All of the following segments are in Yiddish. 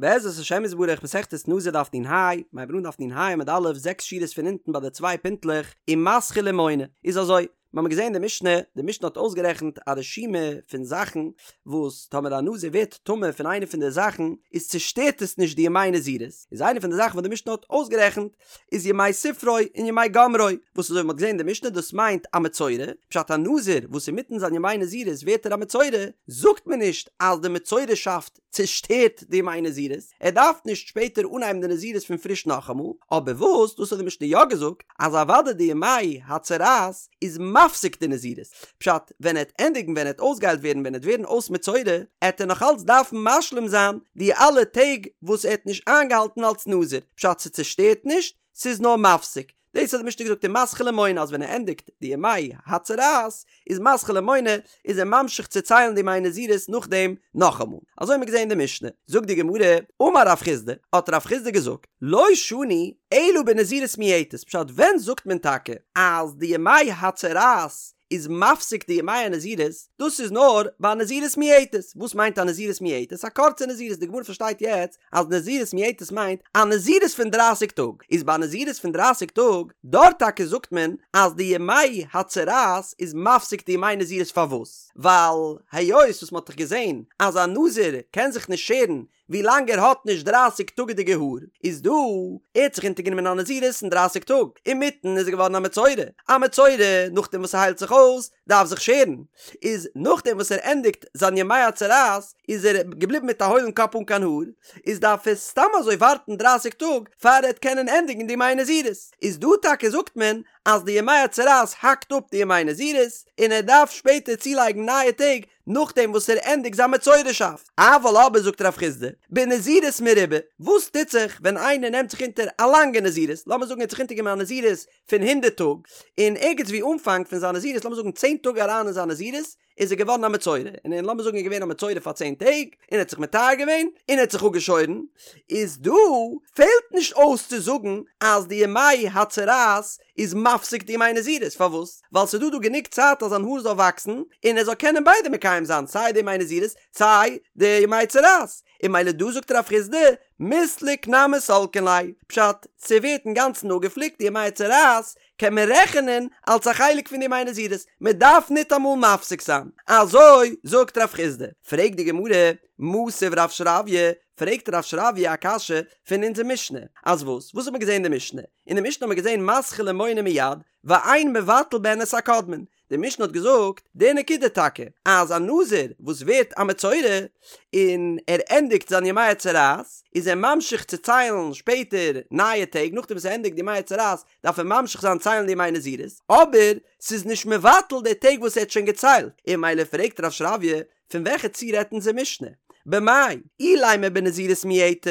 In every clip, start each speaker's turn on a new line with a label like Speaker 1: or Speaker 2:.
Speaker 1: בעזרת השם יתברך מסכת נזיר דף נ"ה, מ'הייבט אן דף נ"ה עמוד א', זעקס שורות פון אונטן ביי די צוויי פינטלעך, ומתחיל ומונה, איז אזוי, מיר האבן געזען די משנה, די משנה האט אויסגערעכנט א רשימה פון זאכן וואס טאמער א נזיר ווערט טמא פון איינע פון די זאכן איז צושטערט עס נישט די ימי נזירות, איז איינע פון די זאכן וואס די משנה האט אויסגערעכנט איז ימי ספרו און ימי גמרו, וואס אזוי ווי מ'האט געזען אין די משנה דאס מיינט א מצורע, פשט א נזיר וואס אינמיטן זיין ימי נזירות ווערט ער א מצורע, זאגט מען נישט אז די מצורעשאפט צושטערט די ימי נזירות, ער דארף נישט שפעטער אנהייבן די נזירות פון פריש נאכאמאל, אבער וואס, דאס האט די משנה יא געזאגט, אז אוודאי די ימי הצרעת איז מפסיק די נזירות, פשט, ווען ער העט ענדיגן ווען ער העט אויסגעהיילט ווערן ווען ער העט ווערן אויס מצורע, העט ער נאך אלץ דארפן משלים זיין די אלע טעג וואס ער האט נישט איינגעהאלטן אלס נזיר, פשט ס'צושטערט נישט, ס'איז נאר מפסיק, דאס האט די משנה געזאגט ומתחיל ומונה אז ווען ער ענדיגט די ימי הצרעת איז מתחיל ומונה איז ער ממשיך צו ציילן די ימי נזירות נאכדעם נאכאמאל. אזוי האט מען געזען אין די משנה. זאגט די גמרא, אמר רב חסדא, האט רב חסדא געזאגט, לא שנו אלא בנזירות מועטת, פשט ווען זאגט מען טאקע אז די ימי הצרעת איז מפסיק די ימי הנזירות, דאס איז נאר ביי א נזירות מועטת, וואס מיינט א נזירות מועטת? א קורצע נזירות, די גמרא פארשטייט יעצט אז נזירות מועטת מיינט א נזירות פון דרייסיג טאג, איז ביי א נזירות פון דרייסיג טאג, דארט טאקע זאגט מען אז די ימי הצרעת איז מפסיק די ימי נזירות פארוואס? ווייל היות וואס מען האט דאך געזען אז א נזיר קען זיך נישט שערן ווי לאנג ער האט נישט דרייסיג טאגעדיגע האר, איז דא, ער האט זיך אונטערגענומען א נזירות אין דרייסיג טאג, אינמיטן איז ער געווארן א מצורע, א מצורע נאכדעם וואס ער היילט זיך אויס דארף זיך שערן, איז נאכדעם וואס ער ענדיגט זיין ימי הצרעת איז ער געבליבן מיט א הוילן קאפ אן קיין האר, איז דארף ער סתם אזוי ווארטן דרייסיג טאג פאר ער וועט קענען ענדיגן די ימי נזירות, איז דא טאקע זאגט מען אז די ימי הצרעת האקט אפ די ימי נזירות, און ער דארף שפעטער צולייגן נייע טעג נאכדעם וואס ער ענדיגט זיין מצורעשאפט. אבל אבער זאגט רב חסדא, בנזירות מרובה, וואס טוט זיך ווען איינער נעמט זיך אונטער א לאנגע נזירות, לאמיר זאגן ער האט זיך אונטערגענומען א נזירות פון הונדערט טאג, און ערגעץ ווי אנפאנג פון זיין נזירות, לאמיר זאגן צען טאג אריין אין זיין נזירות, איז ער געווארן א מצורע, און און לאמיר זאגן ער איז געווען א מצורע פאר צען טעג, און ער האט זיך מטהר געווען, און ער האט זיך אפגעשוירן, איז דא פעלט נישט אויס צו זאגן אז די ימי הצרעת איז מפסיק די ימי נזירות, פארוואס? ווייל ס'איז דא דא גענוג צייט אז זיין האר זאל וואקסן, און ער זאל קענען ביידע מקיים זיין, סיי די ימי נזירות, סיי די ימי צרעת, און ממילא דא זאגט רב חסדא, מיסלק נמי סלקין ליה, פשט, ס'ווערט אינגאנצן אפגעפליקט די ימי צרעת, קען מען רעכענען אלס א חלק פון די ימי נזירות, מען דארף ניטאמאל מפסיק זיין, אזוי זאגט רב חסדא, פרעגט די גמרא, מתיב רב שרביא, פרעגט רב שרביא א קשיא פון אונזער משנה, אז וואס? וואס האט מען געזען אין די משנה? אין די משנה האט מען געזען מתחיל ומונה מיד, ואין מבטל בהן את הקודמין, די משנה האט געזאגט די נקודה טאקע, אז א נזיר וואס ווערט א מצורע און ער ענדיגט זיין ימי הצרעת, איז ער ממשיך צו ציילן שפעטער נייע טעג, נאכדעם וואס ער ענדיגט די ימי הצרעת דארף ער ממשיך זיין ציילן די ימי נזירות, אבער ס'איז נישט מבטל די טעג וואס ער האט שוין געציילט, און ממילא פרעגט רב שרביא, פון וועלכע ציור רעדט אונזער משנה? במאי אילימא בנזירות מועטת,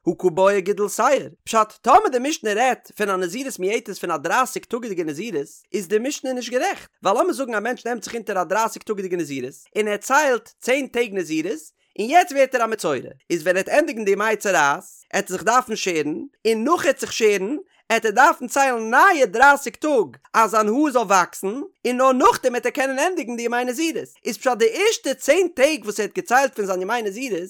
Speaker 1: הא קא בעי גידול שער. פשט, טאמער די משנה רעדט פון א נזירות מועטת פון א דרייסיג טאגעדיגע נזירות, איז די משנה נישט גערעכט, ווייל לאמיר זאגן א מענטש נעמט זיך אונטער א דרייסיג טאגעדיגע נזירות, און ער ציילט צען טעג נזירות, און יעצט ווערט ער א מצורע, איז ווען ער וועט ענדיגן די ימי צרעת, עט ער זיך דארפן שערן, און נאך ער וועט זיך שערן, עט ער דארפן ציילן נייע דרייסיג טאג אז זיין האר זאל וואקסן, און נאר נאכדעם עט ער קענען ענדיגן די ימי נזירות. איז פשט די ערשטע צען טעג וואס ער האט געציילט פון זיין ימי נזירות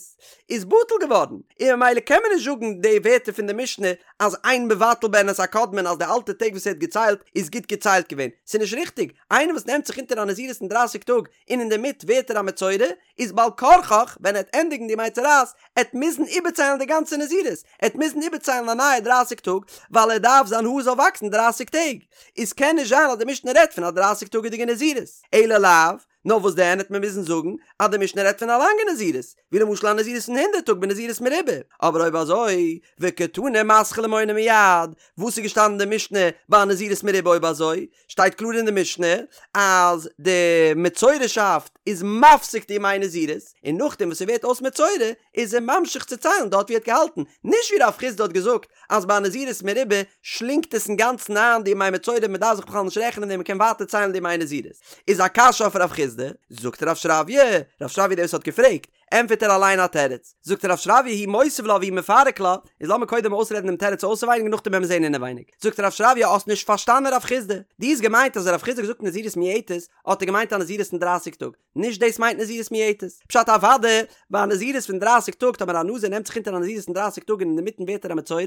Speaker 1: איז בטל געווארן, און ממילא קען מען נישט זאגן די ווערטער פון די משנה אז אין מבטל בהן את הקודמין אז די אלטע טעג וואס ער האט געציילט איז גוט געציילט געווען. ס'איז נישט ריכטיג, איינער וואס נעמט זיך אונטער א נזירות פון דרייסיג טאג און אינדערמיט ווערט ער א מצורע, איז בעל כרחך ווען ער וועט ענדיגן די ימי צרעת עט מוזן איבערציילן די גאנצע נזירות, עט מוזן איבערציילן א נייע דרייסיג טאג, ווייל ער דארף זיין האר זאל וואקסן דרייסיג טעג, איז קען נישט זיין אז די משנה רעדט פון א דרייסיג טאגעדיגע נזירות, אלא לאו, נאר וואס דען העט מען מוזן זאגן אז די משנה רעדט פון א לאנגע נזירות, ווי למשל א נזירות פון הונדערט טאג בנזירות מרובה, אבער אויב אזוי, וקתני מתחיל ומונה מיד, וואס איז געשטאנען אין די משנה ביי א נזירות מרובה אויב אזוי? שטייט קלאר אין די משנה אז די מצורעשאפט איז מפסיק די ימי נזירות, און נאכדעם וואס ער ווערט אויס מצורע איז ער ממשיך צו ציילן דארט ווי ער האט געהאלטן, נישט ווי רב חסדא האט געזאגט אז ביי א נזירות מרובה שלינגט עס אינגאנצן איין די ימי מצורע מען דארף זיך בכלל נישט רעכענען און מען קען ווייטער ציילן די ימי נזירות. איז א קשיא אויף רב חסדא, זאגט רב שרביא, רב שרביא דער וואס האט געפרעגט, ענטפערט ער אליין א תירוץ, זאגט רב שרביא הוא מותיב לה והוא מפרק לה, איז לאמיר קודם אויסרעדן דעם תירוץ אויסעווייניג און נאכדעם וועלן מיר זען אינעווייניג. זאגט רב שרביא האסט נישט פארשטאנען רב חיסדא, דו האסט געמיינט אז רב חיסדא האט געזאגט נזירות מועטת, האט ער געמיינט א נזירות פון דרייסיג טאג, נישט דאס מיינט נזירות מועטת. פשט אוודאי, ביי א נזירות פון דרייסיג טאג, טאמער א נזיר נעמט זיך אונטער א נזירות פון דרייסיג טאג און אינדערמיטן ווערט ער א מצורע,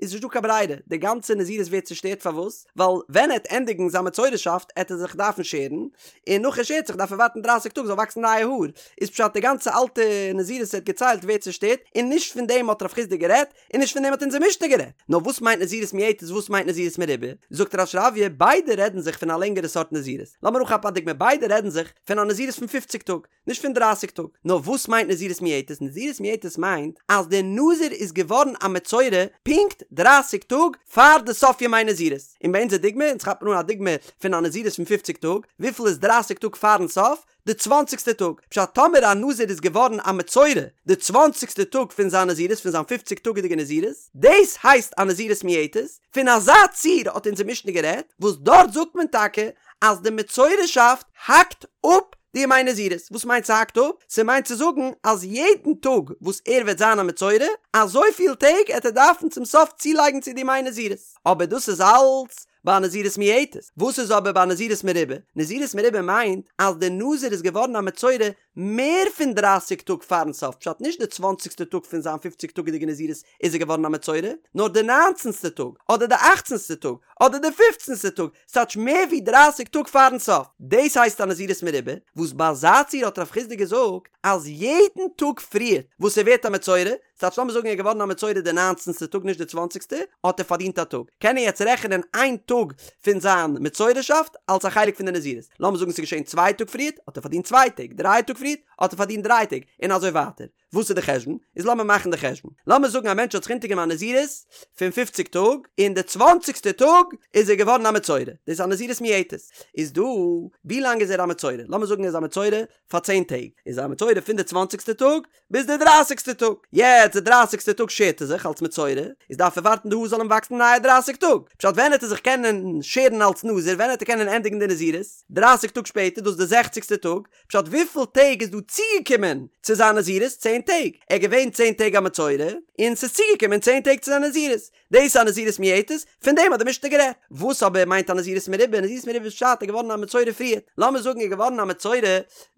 Speaker 1: איז נישט דא קיין ברירה, די גאנצע נזירות ווערט צושטערט, פארוואס? ווייל ווען ער עט ענדיגן זיין מצורעשאפט עט ער זיך דארפן שערן, און נאך ער שערט זיך דארף ער ווארטן דרייסיג טאג זאל וואקסן נייע האר, איז פשט די גאנצע אלטע נזירות ער האט געציילט ווערט צושטערט, און נישט פון דעם האט רב חיסדא גערעדט, און נישט פון דעם האט אונזער משנה גערעדט. נאר וואס מיינט נזירות מועטת וואס מיינט נזירות מרובה? זאגט רב שרביא, ביידע רעדן זיך פון א לענגערע סארט נזירות. לאמיר אנכאפן א דוגמא, ביידע רעדן זיך פון א נזירות פון פופציג טאג, נישט פון דרייסיג טאג. נאר וואס מיינט נזירות מועטת? נזירות מועטת מיינט אז דער נזיר איז געווארן א מצורע פונקט דרייסיג טאג פאר די סוף ימי נזירות. און ביי אונזער דוגמא, אונז כאפן אן א דוגמא פון א נזירות פון פופציג טאג, וויפיל איז דרייסיג טאג פארן סוף? די צוואנציגסטע טאג, פשט טאמער א נזיר איז געווארן א מצורע די צוואנציגסטע טאג פון זיין נזירות פון זיין פופציג טאגעדיגע נזירות, דאס הייסט א נזירות מועטת, פון אזא ציור האט אונזער משנה גערעדט, וואס דארט זאגט מען טאקע אז די מצורעשאפט האקט אפ די ימי נזירות, וואס מיינט ס'האקט אפ? ס'מיינט צו זאגן אז יעדן טאג וואס ער וועט זיין א מצורע, אזויפיל טעג עט ער דארפן צום סוף צולייגן צו די ימי נזירות, אבער דאס איז אלץ ביי א נזירות מועטת. וואס איז אבער ביי א נזירות מרובה? נזירות מרובה מיינט אז דער נזיר איז געווארן א מצורע מער פון דרייסיג טאג פארן סוף, פשט נישט די צוואנציגסטע טאג פון זיין פופציג טאגעדיגע נזירות איז ער געווארן א מצורע, נאר די ניינצנסטע טאג, אדער די אכצנסטע טאג, אדער די פופצנסטע טאג, ס'טייטש מער ווי דרייסיג טאג פארן סוף. דאס הייסט א נזירות מרובה, וואס ביי אזא ציור האט רב חיסדא געזאגט אז יעדן טאג פריער וואס ער ווערט א מצורע, ס'טייטש לאמיר זאגן ער איז געווארן א מצורע די ניינצנסטע טאג נישט די צוואנציגסטע, האט ער פארדינט א טאג, קען ער יעצט רעכענען איין טאג פון זיין מצורעשאפט אלס א חלק פון די נזירות, לאמיר זאגן ס'איז געשען צוויי טאג פריערט, האט ער פארדינט צוויי טעג, דריי טאג פריערט, האט ער פארדינט דריי טעג, און אזוי ווייטער. וואס איז די חשבון? איז לאמיר מאכן די חשבון. לאמיר זאגן א מענטש האט זיך אונטערגענומען א נזירות פון פופציג טאג, און די צוואנציגסטע טאג איז ער געווארן א מצורע, דאס איז א נזירות מועטת. איז דא, ווי לאנג איז ער א מצורע? לאמיר זאגן ער איז א מצורע פאר צען טעג, איז ער א מצורע פון די צוואנציגסטע טאג ביז די דרייסיגסטע טאג, יעצט די דרייסיגסטע טאג שערט ער זיך אלס מצורע, איז דארף ער ווארטן די האר זאל אים וואקסן נייע דרייסיג טאג, פשט ווען העט ער זיך קענען שערן אלס נזיר, ווען העט ער קענען ענדיגן די נזירות? דרייסיג טאג שפעטער, דאס איז די זעכציגסטע טאג, פשט וויפיל טעג איז דא צוגעקומען צו זיין נזירות? צען טעג, ער איז געווען צען טעג א מצורע, און ס'איז צוגעקומען צען טעג צו זיין נזירות, דאס איז א נזירות מועטת, פון דעם האט די משנה גערעדט. וואס אבער מיינט א נזירות מרובה? נזירות מרובה איז פשט ער איז געווארן א מצורע פריער. לאמיר זאגן ער איז געווארן א מצורע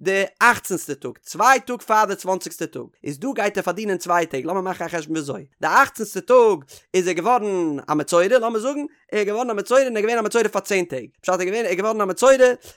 Speaker 1: די אכצנסטע טאג, צוויי טאג פאר די צוואנציגסטע טאג, איז דא גייט ער פארדינען צוויי טעג, לאמיר מאכן א חשבון וויאזוי, די אכצנסטע טאג איז ער געווארן א מצורע, לאמיר זאגן, ער איז געווארן א מצורע און ער איז געווען א מצורע פאר צען טעג, פשט ער איז געווען ער איז געווארן א מצורע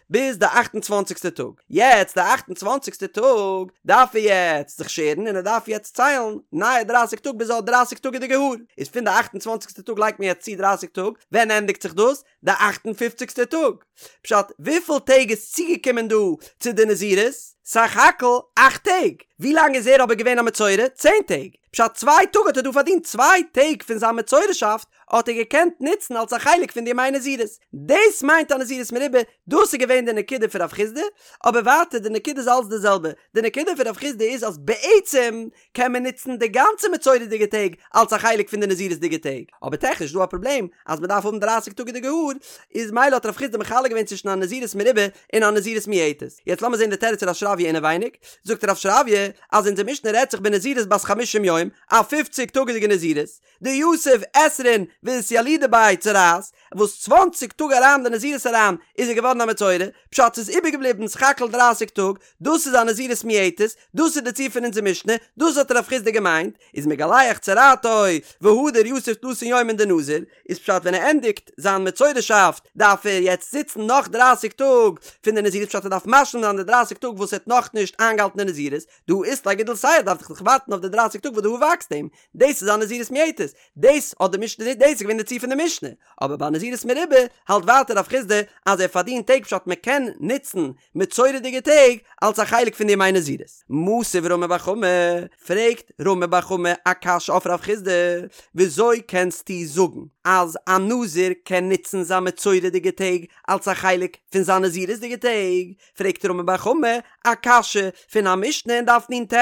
Speaker 1: ביז די אכט און צוואנציגסטע טאג, יעצט די אכט און צוואנציגסטע טאג דארף ער יעצט זיך שערן און ער דארף יעצט ציילן נייע דרייסיג טאג ביז ער האט דרייסיג טאגעדיגע האר, איז פון די אכט און צוואנציגסטע טאג לייגט מען יעצט צו דרייסיג טאג, ווען ענדיגט זיך דאס? די אכט און פופציגסטע טאג, פשט וויפיל טעג איז צוגעקומען דא צו די נזירות? סך הכל אכט טעג, ווי לאנג איז ער אבער געווען א מצורע? צען טעג, פשט צוויי טאג האט ער דא פארדינט צוויי טעג פון זיין מצורעשאפט האט ער געקענט נוצן אלס א חלק פון די ימי נזירות. דאס מיינט א נזירות מרובה, דאס איז געווען די נקודה פון רב חיסדא, אבער ווייטער די נקודה איז אלץ די זעלבע, די נקודה פון רב חיסדא איז אז בעצם קען מען נוצן די גאנצע מצורע'דיגע טעג אלס א חלק פון די נזירות'דיגע טעג, אבער טעכניש איז דא א פראבלעם אז מען דארף האבן דרייסיג טאגעדיגע האר, איז מילא האט רב חיסדא מחלק געווען צווישן א נזירות מרובה און א נזירות מועטת. יעצט לאמיר זען די תירוץ פון רב שרביא אינעווייניג, זאגט רב שרביא אז אונזער משנה רעדט זיך בנזירות בת חמישים יום, א פופציג טאגעדיגע נזירות, דיתיב עשרין ואתילידא ביה צרעת, וואס צוואנציג טאג אריין די נזירות אריין איז ער געווארן א מצורע, פשט ס'איז איבערגעבליבן סך הכל דרייסיג טאג, דאס איז א נזירות מועטת, דאס איז די ציור פון אונזער משנה, דאס האט רב חיסדא געמיינט, איז מגלח צרעתו והדר יתיב תלתין יומין דנזיר, איז פשט ווען ער ענדיגט זיין מצורעשאפט דארף ער יעצט זיצן נאך דרייסיג טאג פון די נזירות פשט ער דארף משלים זיין די דרייסיג טאג וואס ער האט נאכנישט איינגעהאלטן די נזירות, דהא אית ליה גידול שער דארף דאך ווארטן אויף די דרייסיג טאג וואס די האר וואקסט אים, דאס איז א נזירות מועטת, דאס האט די משנה, דאס איז געווען די ציור פון די משנה, אבער ביי נזירות מרובה האלט ווייטער רב חיסדא אז ער פארדינט טעג פשט מען קען נוצן מצורע'דיגע טעג אלס א חלק פון די ימי נזירות. מתיב רמי בר חמא, פרעגט רמי בר חמא א קשיא אויף רב חיסדא, וויאזוי קענסטו זאגן אז א נזיר קען נוצן זיין מצורע'דיגע טעג אלס א חלק פון זיין נזירות'דיגע טעג? פרעגט רמי בר חמא א קשיא פון א משנה אין דף נ"ט,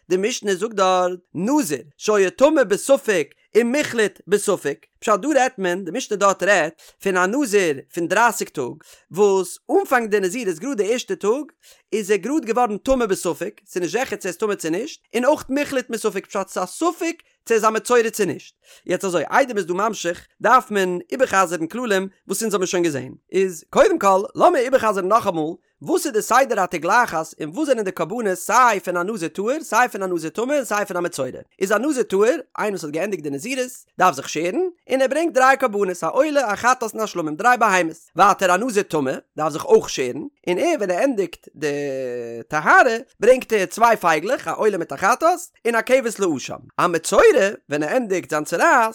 Speaker 1: די משנה זאגט דארט, נזיר שהיה טמא בספק ומוחלט בספק, פשט דא רעדט מען, די משנה דארט רעדט פון א נזיר פון דרייסיג טאג, וואס אנפאנג די נזירות גראד די ערשטע טאג איז ער גראד געווארן טמא בספק, ס'איז נישט זיכער צו ער איז טמא צו נישט, און אויך מוחלט מספק פשט ס'איז א ספק צו ער איז א מצורע צו נישט. יעצט אזוי, איידער מ'איז דא ממשיך, דארף מען איבער'חזר'ן כללים וואס אונז האבן שוין געזען. איז קודם כל, לאמיר איבער'חזר'ן נאכאמאל, וואס איז די סדר התגלחת און וואס זענען די קרבנות סיי פון א נזיר טהור, סיי פון א נזיר טמא און סיי פון א מצורע. איז א נזיר טהור, איינער וואס האט געענדיגט די נזירות, דארף זיך שערן, און ער ברענגט דריי קרבנות, א עולה, א חטאת און א שלמים, דריי בהמות. ווייטער א נזיר טמא דארף זיך אויך שערן, און ער ווען ער ענדיגט די טהרה ברענגט ער צוויי פייגלעך, א עולה מיט א חטאת, און א כבש לאשם. א מצורע ווען ער ענדיגט זיין צרעת,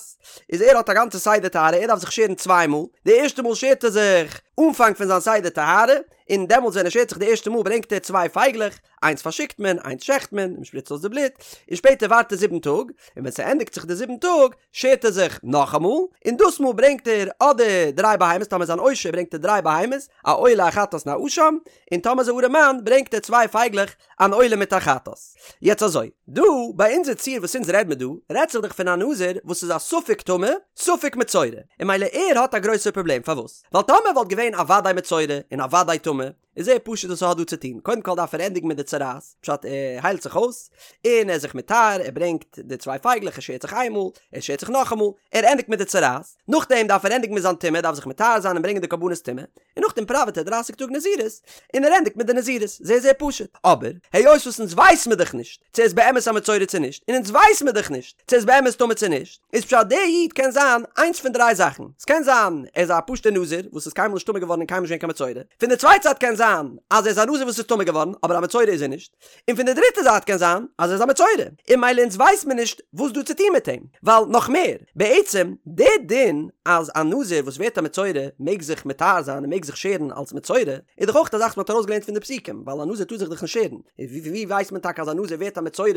Speaker 1: איז ער האט א גאנצע סדר טהרה, ער דארף זיך שערן צוויי מאל, די ערשטע מאל שערט ער זיך אנפאנג פון זיין סדר טהרה, און דעמאלטס ווען ער שערט זיך די ערשטע מאל ברענגט ער צוויי פייגלעך, איינס פארשיקט מען, איינס שעכט מען, מען שפריצט אויס די בלוט, און שפעטער ווארט ער זיבן טאג, און ווען ס'ענדיגט זיך די זיבן טאג, שערט ער זיך נאכאמאל, און דאס מאל ברענגט ער אדער דריי בהמות, טאמער איז אן עושר ברענגט ער דריי בהמות, א עולה א חטאת און א אשם, און טאמער איז א ארעמאן ברענגט ער צוויי פייגלעך, אן עולה מיט א חטאת. יעצט אזוי, דא ביי אונזער ציור וואס אונז רעד מיר דא, רעדט זיך דאך פון א נזיר וואס איז א ספק טמא, ספק מצורע, און ממילא ער האט א גרויסער פראבלעם, פארוואס? ווייל טאמער וואלט געווען א וודאי מצורע און א וודאי טמא, איז זייער פשוט וואס ער האט דא צו טון, קודם כל דארף ער ענדיגן מיט די צרעת, פשט ער היילט זיך אויס, און ער איז זיך מטהר, ער ברענגט די צוויי פייגלעך, ער שערט זיך איינמאל, ער שערט זיך נאכאמאל, ער ענדיגט מיט די צרעת, נאכדעם דארף ער ענדיגן מיט זיין טומאה, ער דארף זיך מטהר זיין און ברענגען די קרבנות טומאה, און נאכדעם פראוועט ער דרייסיג טאג נזירות, און ער ענדיגט מיט די נזירות, זייער זייער פשוט, אבער, היות וואס אונז ווייס מיר דאך נישט, צו ער איז באמת א מצורע צו נישט, און אונז ווייס מיר דאך נישט, צו ער איז באמת טמא צו נישט, איז פשט דער איד קען זיין איינס פון דריי זאכן, ס'קען זיין ער איז א פשוט'ער נזיר וואס איז קיינמאל נישט טמא געווארן און קיינמאל נישט געווען קיין מצורע, פון די צווייטע זייט קען זיין אז ער איז א נזיר וואס איז טמא געווארן אבער א מצורע איז ער נישט, און פון די דריטע זייט קען זיין אז ער איז א מצורע, און ממילא אונז ווייסט מען נישט וואס דא צו טון מיט אים, ווייל נאך מער, בעצם דער דין אז א נזיר וואס ווערט א מצורע מעג זיך מטהר זיין און מעג זיך שערן אלס מצורע, איז דאך אויך א זאך וואס מ'האט ארויסגעלערנט פון די פסוקים, ווייל א נזיר טאר זיך דאך נישט שערן, און ווי ווי ווייסט מען טאקע אז א נזיר ווערט א מצורע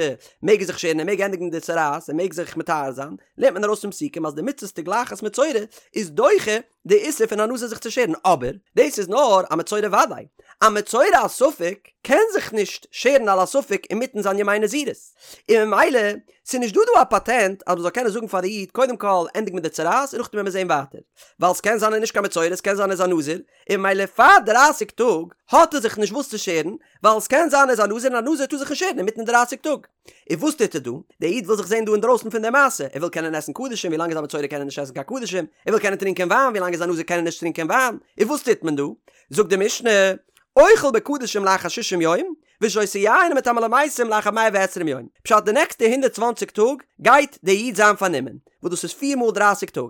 Speaker 1: מעג ער זיך שערן ער מעג ענדיגן די צרעת ער מעג זיך מטהר זיין, לערנט מען ארויס פון פסוקים אז די מצות תגלחת מצורע איז דוחה די איסור פון א נזיר זיך צו שערן, אבער דאס איז נאר א מצורע וודאי, א מצורע א ספק קען זיך נישט שערן על הספק אינמיטן זיין ימי נזירות, און ממילא ס'איז נישט דא דא א פאטענט אז מ'זאל קענען זאגן פאר די איד קודם כל ענדיג מיט די צרעת און נאכדעם וועמיר זען ווייטער, ווייל ס'קען זיין ער איז נישט קיין מצורע ס'קען זיין ער איז א נזיר, און ממילא פאר דרייסיג טאג האט ער זיך נישט וואס צו שערן, ווייל ס'קען זיין ער איז א נזיר און א נזיר טאר זיך נישט שערן אינמיטן דרייסיג טאג. און וואס טוט ער דא? דער איד וויל זיך זען דא אינדרויסן פון דער מעשה, ער וויל קענען עסן קדשים ווילאנג ער איז א מצורע קען ער נישט עסן קיין קדשים, ער וויל קענען טרינקען וויין ווילאנג ער איז א נזיר קען ער נישט טרינקען וויין, און וואס טוט מען דא? זאגט די משנה, אוכל בקדשים לאחר שישים יום, ושותה יין ומטמא למתים לאחר מאה ועשרים יום, פשט די נעקסטע הונדערט צוואנציג טאג גייט דער איד זיין פארנומען, וואס דאס איז פיר מאל דרייסיג טאג,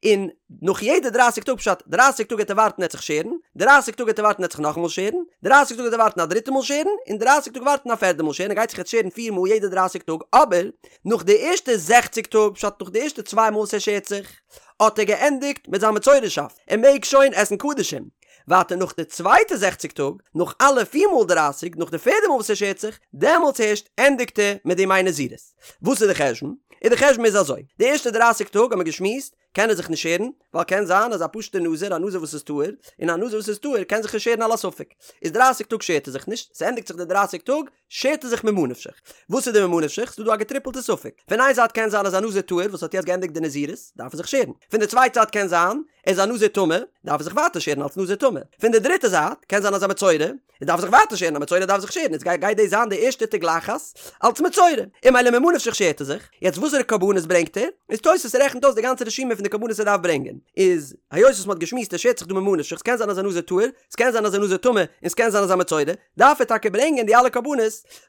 Speaker 1: און נאך יעדע דרייסיג טאג פשט דרייסיג טאג העט ער ווארטן ער העט זיך שערן, דרייסיג טאג העט ער ווארטן ער העט זיך נאכאמאל שערן, דרייסיג טאג העט ער ווארטן א דריטע מאל שערן, און דרייסיג טאג ווארטן א פערדע מאל שערן, ער גייט זיך יעצט שערן פיר מאל יעדע דרייסיג טאג, אבער נאך די ערשטע זעכציג טאג פשט נאך די ערשטע צוויי מאל וואס ער שערט זיך, האט ער געענדיגט מיט זיין מצורע'שאפט, ער מעג שוין עסן קדשים. ווייטער נאך די צווייטע זעכציג טאג, נאך אלע פיר מאל דרייסיג, נאך די פערדע מאל וואס ער שערט זיך, דעמאלטס הערשט ענדיגט ער מיט די ימי נזירות. וואס איז די חשבון? און די חשבון איז אזוי, די ערשטע דרייסיג טאג האט מען געשמועסט, קען ער זיך נישט שערן, ווייל קען זיין אז א פשוט'ער נזיר, א נזיר וואס איז טהור, און א נזיר וואס איז טהור קען זיך נישט שערן על הספק. איז דרייסיג טאג שערט ער זיך נישט, ס'ענדיגט זיך די דרייסיג טאג, שערט ער זיך ממה נפשך. וואס איז די ממה נפשך? ס'דא דא א געטריפלטע ספק. פון איין זייט קען זיין אז א נזיר טהור וואס האט יעצט געענדיגט די נזירות, דארף ער זיך שערן. פון די צווייטע זייט קען זיין, ער איז א נזיר טמא, דארף ער זיך ווייטער שערן אלס נזיר טמא. פון די דריטע זייט, קען זיין אז א מצורע, ער דארף זיך ווייטער שערן, א מצורע דארף זיך שערן, איז גייט דאס זיין די ערשטע תגלחת אלס מצורע. און ממילא ממה נפשך שערט ער זיך. יעצט וואסערע קרבנות ברענגט ער? איז תוס' רעכנט אויס די גאנצע רשימה פון די קרבנות ער דארף ברענגען. איז היות וואס מ'האט געשמועסט ער שערט זיך דא ממה נפשך, ס'קען זיין אז א נזיר טהור, ס'קען זיין אז א נזיר טמא, און ס'קען זיין אז א מצורע, דארף ער טאקע ברענגען די אלע קרבנות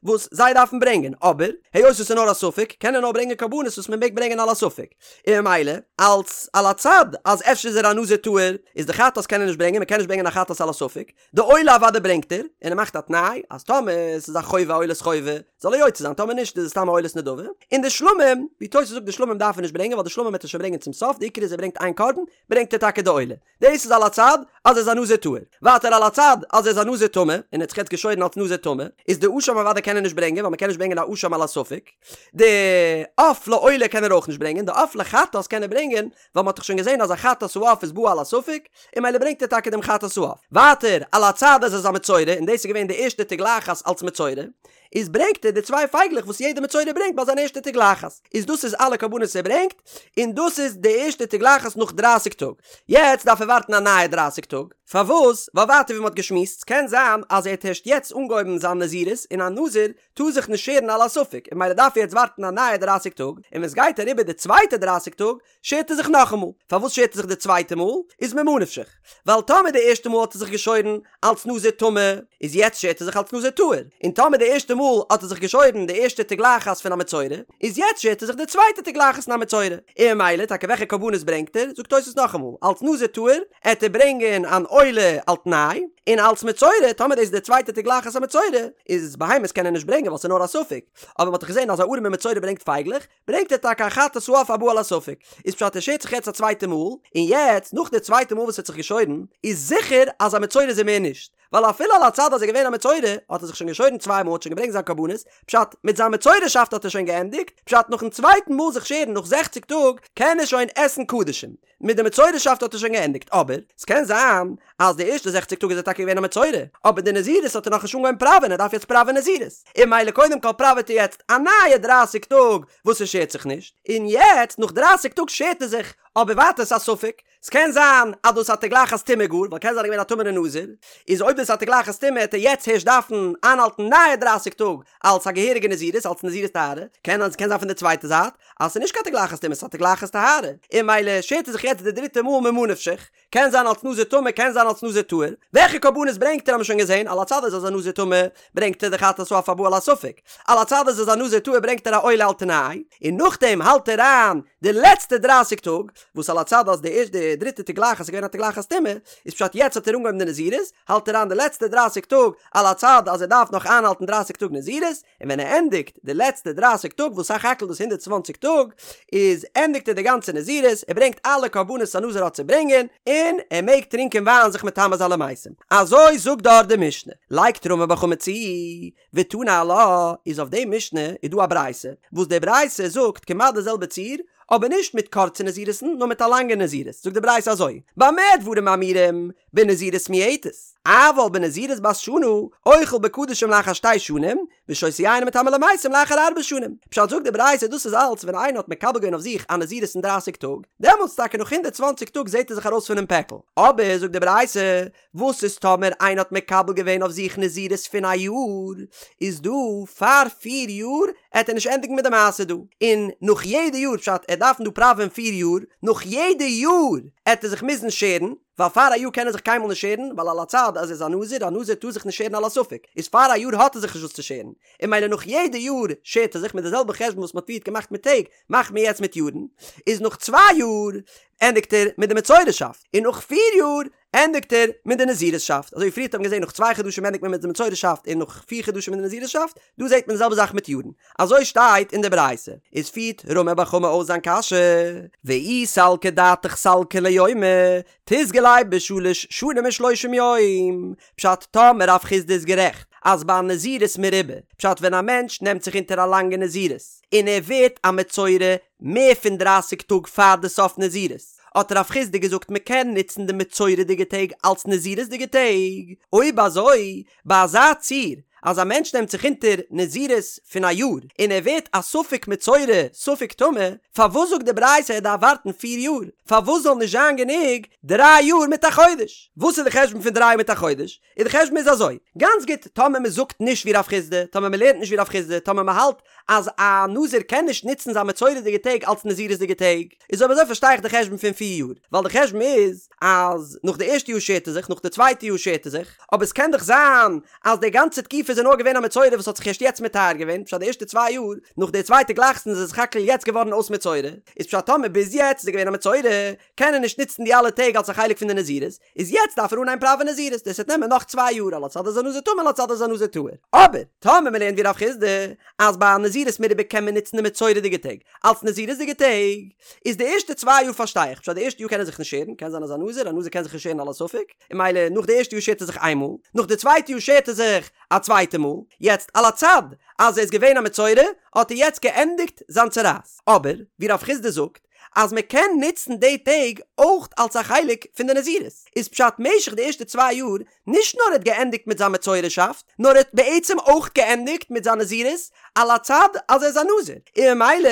Speaker 1: וואס זיי דארפן ברענגען, אבער היות עס איז נאר א ספק קען ער נאר ברענגען קרבנות וואס מען מעג ברענגען על הספק, און ממילא אלס על הצד אז אפשר איז ער א נזיר טהור איז די חטאת קען ער נישט ברענגען, מען קען נישט ברענגען א חטאת על הספק, די עולה אוודאי ברענגט ער, און ער מאכט א תנאי אז טאמער עס איז א חובה א עולת חובה זאל ער יוצא זיין טאמער נישט איז עס סתם א עולת נדבה, און די שלמים, ווי תוס' זאגט די שלמים דארף ער נישט ברענגען ווייל די שלמים וועט ער שוין ברענגען צום סוף, די עיקר איז ער ברענגט איין קרבן, ברענגט ער טאקע די עולה. דאס איז על הצד אז ער איז א נזיר טהור. ווייטער על הצד אז ער איז א נזיר טמא, און ער האט זיך יעצט געשוירן אלס נזיר טמא, איז די אשם אוודאי קען ער נישט ברענגען ווייל מ'קען נישט ברענגען א אשם על הספק. די עוף לעולה קען ער אויך נישט ברענגען, די עוף לחטאת קען ער ברענגען, ווייל מ'האט דאך שוין געזען אז א חטאת העוף איז בא על הספק, און ממילא ברענגט ער טאקע דעם חטאת העוף. ווייטער על הצד אז ער איז א מצורע, און דאס איז געווען די ערשטע תגלחת אלס מצורע. איז ברענגט ער די צוויי פייגלעך וואס יעדע מצורע ברענגט ביי זיין ערשטע תגלחת, איז דאס איז אלע קרבנות ער ברענגט, און דאס איז די ערשטע תגלחת נאך דרייסיג טאג, יעצט דארף ער ווארטן א נייע דרייסיג טאג, פארוואס? ווייל ווייטער ווי מען האט געשמועסט, ס'קען זיין אז ער האט הערשט יעצט אנגעהויבן זיין נזירות, און א נזיר טאר זיך נישט שערן על הספק, און ממילא דארף ער יעצט ווארטן א נייע דרייסיג טאג, און ווען ס'גייט אריבער די צווייטע דרייסיג טאג, שערט ער זיך נאכאמאל. פארוואס שערט ער זיך די צווייטע מאל? איז ממה נפשך. ווייל טאמער די ערשטע מאל האט ער זיך געשוירן אלץ נזיר טמא, איז יעצט שערט ער זיך אלץ נזיר טהור. און טאמער די ערשטע מאל האט ער זיך געשוירן די ערשטע תגלחת פון א מצורע, איז יעצט שערט ער זיך די צווייטע תגלחת פון א מצורע. און ממילא טאקע וועלכע קרבנות ברענגט ער? זאגט תוס' נאכאמאל, אלץ נזיר טהור עט ער ברענגען אן עולה על תנאי, און אלץ מצורע, טאמער דאס איז די צווייטע תגלחת א מצורע, איז בהמות קען ער נישט ברענגען ווייל ס'איז נאר א ספק, אבער מ'האט דאך געזען אז א ארעמע מצורע ברענגט פייגלעך, ברענגט ער טאקע א חטאת העוף הבא על הספק, איז פשט ער שערט זיך יעצט א צווייטע מאל, און יעצט נאך די צווייטע מאל וואס ער האט זיך געשוירן, איז זיכער אז א מצורע איז ער מער נישט, ווייל אפילו על הצד אז ער איז געווען א מצורע, האט ער זיך שוין געשוירן צוויי מאל האט שוין געברענגט זיין קרבנות, פשט מיט זיין מצורעשאפט האט ער שוין געענדיגט, פשט נאכן צווייטן מאל זיך שערן נאך זעכציג טאג קען ער שוין עסן קדשים. מיט די מצורעשאפט האט ער שוין געענדיגט, אבער ס'קען זיין אז די ערשטע זעכציג טאג איז ער טאקע געווען א מצורע, אבער די נזירות האט ער נאכנישט אנגעהויבן פראווען, ער דארף יעצט פראווען נזירות, און ממילא קודם כל פראוועט ער יעצט א נייע דרייסיג טאג וואס ער שערט זיך נישט, און יעצט נאך דרייסיג טאג שערט ער זיך, אבער ווייטער ס'איז א ספק, ס'קען זיין אז דאס איז א תגלחת טומאה גאר, ווייל קען זיין ער איז געווען א טמא'נער נזיר, איז אויב דאס איז א תגלחת טומאה העט ער יעצט הערשט דארפן איינהאלטן נייע דרייסיג טאג אלס א געהעריגע נזירות, אלס נזירות טהרה, קען קען זיין פון די צווייטע זייט אז ס'איז נישט קיין תגלחת טומאה ס'איז א תגלחת טהרה, און ממילא שערט ער זיך יעצט די דריטע מאל ממה נפשך, קען זיין אלס נזיר טמא קען זיין אלס נזיר טהור, וועלכע קרבנות ברענגט ער האבן מיר שוין געזען, על הצד אז ער איז א נזיר טמא ברענגט ער די חטאת העוף הבא על הספק, על הצד אז ער איז א נזיר טהור ברענגט ער א עולה על תנאי, און נאכדעם האלט ער איין די לעצטע דרייסיג טאג, וואס על הצד אז די ערשטע די דריטע תגלחת איז געווען א תגלחת טומאה, איז פשט יעצט האט ער אנגעהויבן די נזירות, האלט ער איין די לעצטע דרייסיג טאג על הצד אז ער דארף נאך איינהאלטן דרייסיג טאג נזירות, און ווען ער ענדיגט די לעצטע דרייסיג טאג וואס סך הכל דאס הונדערט צוואנציג טאג, איז ענדיגט ער די גאנצע נזירות, ער ברענגט אלע קרבנות א נזיר האט צו ברענגען, און ער מעג טרינקען וויין זיך מטמא זיין למתים. אזוי זאגט דארט די משנה. לייגט רמי בר חמא צו, ותני עלה, איז אויף די משנה איז דא א ברייתא, וואס די ברייתא זאגט כמעט די זעלבע ציור, אבער נישט מיט קורצע נזירות'ן נאר מיט א לאנגע נזירות, זאגט די ברייתא אזוי, במה דברים אמורים, בנזירות מועטת, אבל בנזירות בת שנה, אוכל בקדשים לאחר שתי שנים, ושותה יין ומטמא למתים לאחר ארבע שנים. פשט זאגט די ברייתא דאס איז אלץ ווען איינער האט מקבל געווען אויף זיך א נזירות פון דרייסיג טאג, דעמאלטס טאקע נאך הונדערט צוואנציג טאג זעט ער זיך ארויס פונעם פעקל, אבער זאגט די ברייתא, וואס איז טאמער איינער האט מקבל געווען אויף זיך נזירות פון א יאר, איז דא פאר פיר יאר עט ער נישט ענדיגן מיט די מעשה דא, און נאך יעדע יאר פשט ער דארפן דא פראווען פיר יאר, נאך יעדע יאר עט ער זיך מוזן שערן, ווייל פאר א יאר קען ער זיך קיינמאל נישט שערן, ווייל על הצד אז ער איז א נזיר, א נזיר טאר זיך נישט שערן על הספק, איז פאר א יאר האט ער זיך נישט וואס צו שערן, און ממילא נאך יעדע יאר שערט ער זיך מיט די זעלבע חשבון וואס מען האט פריערט געמאכט מיט טעג, מאכט מען יעצט מיט יארן, איז נאך צוויי יאר ענדיגט ער מיט די מצורעשאפט, און נאך פיר יאר ענדיגט ער מיט די נזירות'שאפט, אזוי ווי פריערט האט מען געזען נאך צוויי חדשים ענדיגט מען מיט די מצורעשאפט און נאך פיר חדשים מיט די נזירות'שאפט, דא זעט מען די זעלבע זאך מיט יארן, אזוי שטייט אין די ברייתא, איז פירט רמי בר חמא אויס זיין קשיא, ואי סלקא דעתך סלקא ליומי, תיסגי ליה בשלש שנים ושלושים יום, פשט טאמער רב חסדא איז גערעכט אז ביי א נזירות מרובה, פשט ווען א מענטש נעמט זיך אונטער א לאנגע נזירות און ער ווערט א מצורע מער פון דרייסיג טאג פאר די סוף נזירות, האט רב חסדא געזאגט מען קען נוצן די מצורע'דיגע טעג אלס נזירות'דיגע טעג, אויב אזוי ביי אזא ציור אז א מענטש נעמט זיך אונטער נזירות פון א יאר און ער ווערט א ספק מצורע ספק טמא, פארוואס זאגט די ברייתא ער דארף ווארטן פיר יאר? פארוואס זאל נישט זיין גענוג דריי יאר מיט א חודש? וואס איז די חשבון פון דריי יאר מיט א חודש? און די חשבון איז אזוי, גאנץ גוט, טאמער מען זאגט נישט ווי רב חסדא, טאמער מען לערנט נישט ווי רב חסדא, טאמער מען האלט אז א נזיר קען נישט נוצן זיין מצורע'דיגע טעג אלס נזירות'דיגע טעג, איז אויב אזוי פארשטיי איך די חשבון פון פיר יאר, ווייל די חשבון איז אז נאך די ערשטע יאר שערט ער זיך, נאך די צווייטע יאר שערט ער זיך, אבער עס קען דאך זיין אז די גאנצע תקופה איז ער נאר געווען א מצורע וואס האט זיך ערשט יעצט מטהר געווען, פשט די ערשטע צוויי יאר, נאך די צווייטע תגלחת איז ער סך הכל יעצט געווארן אויס מצורע, איז פשט טאמער ביז יעצט איז ער געווען א מצורע, קען ער נישט נוצן די אלע טעג אלס א חלק פון די נזירות, איז יעצט דארף ער אנהייבן פראווען נזירות, דאס וועט נעמען נאך צוויי יאר על הצד אז א נזיר טמא על הצד אז א נזיר טהור. אבער, טאמער מען לערנט ווי רב חסדא, אז ביי א נזירות מרובה קען מען נוצן די מצורע'דיגע טעג אלס נזירות'דיגע טעג, איז די ערשטע צוויי יאר פארשטיי איך, פשט די ערשטע יאר קען ער זיך נישט שערן, קען זיין אז א נזיר, א נזיר קען זיך נישט שערן על הספק, און ממילא נאך די ערשטע יאר שערט ער זיך איין מאל, נאך די צווייטע יאר שערט ער זיך א צווייטע מאל, יעצט על הצד אז ער איז געווען א מצורע, האט ער יעצט געענדיגט זיין צרעת. אבער, ווי רב חסדא זאגט, אז מען קען נוצן די טעג אויך אלס א חלק פון די נזירות, איז פשט משך די ערשטע צוויי יאר נישט נאר ער האט געענדיגט מיט זיין מצורע'שאפט, נאר ער האט בעצם אויך געענדיגט מיט זיין נזירות על הצד אז ער איז א נזיר, און ממילא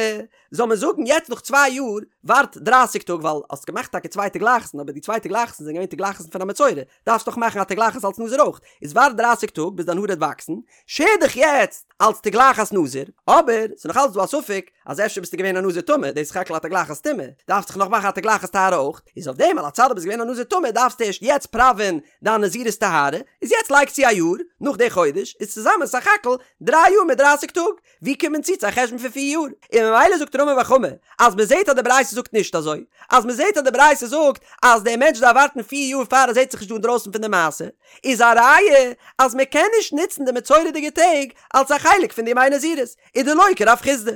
Speaker 1: זאל מען זאגן יעצט נאך צוויי יאר ווארט דרייסיג טאג ווייל האסט געמאכט טאקע צוויי תגלחות'ן אבער די צוויי תגלחות'ן זענען געווען תגלחות'ן פון א מצורע דארפסט דאך מאכן א תגלחת אלס נזיר אויך איז ווארט דרייסיג טאג ביז דיין האר וועט וואקסן שער דיך יעצט אלס תגלחת נזיר אבער ס'איז נאך אלץ דא א ספק אז אפשר ביסטו געווען א נזיר טמא דאס איז סך הכל א תגלחת טומאה דארפסט דאך נאך מאכן א תגלחת טהרה אויך איז אויף דעם על הצד אז ביסט געווען א נזיר טמא דארפסטו ערשט יעצט פראווען דיין נזירות טהרה איז יעצט לייג צו א יאר נאך די חודש איז צוזאמען סך הכל דריי יאר מיט דרייסיג טאג ווי קומט מען צו צו א חשבון פון פיר יאר? און ממילא זאגט רמי בר חמא אז מען זעט אז די ברייתא זאגט נישט אזוי, אז מען זעט אז די ברייתא זאגט אז דער מענטש דארף ווארטן פיר יאר פאר ער זעט זיך נישט דא אינדרויסן פון די מעשה, איז א ראיה אז מען קען נישט נוצן די מצורע'דיגע טעג אלס א חלק פון די ימי נזירות, איז דלא כרב חסדא.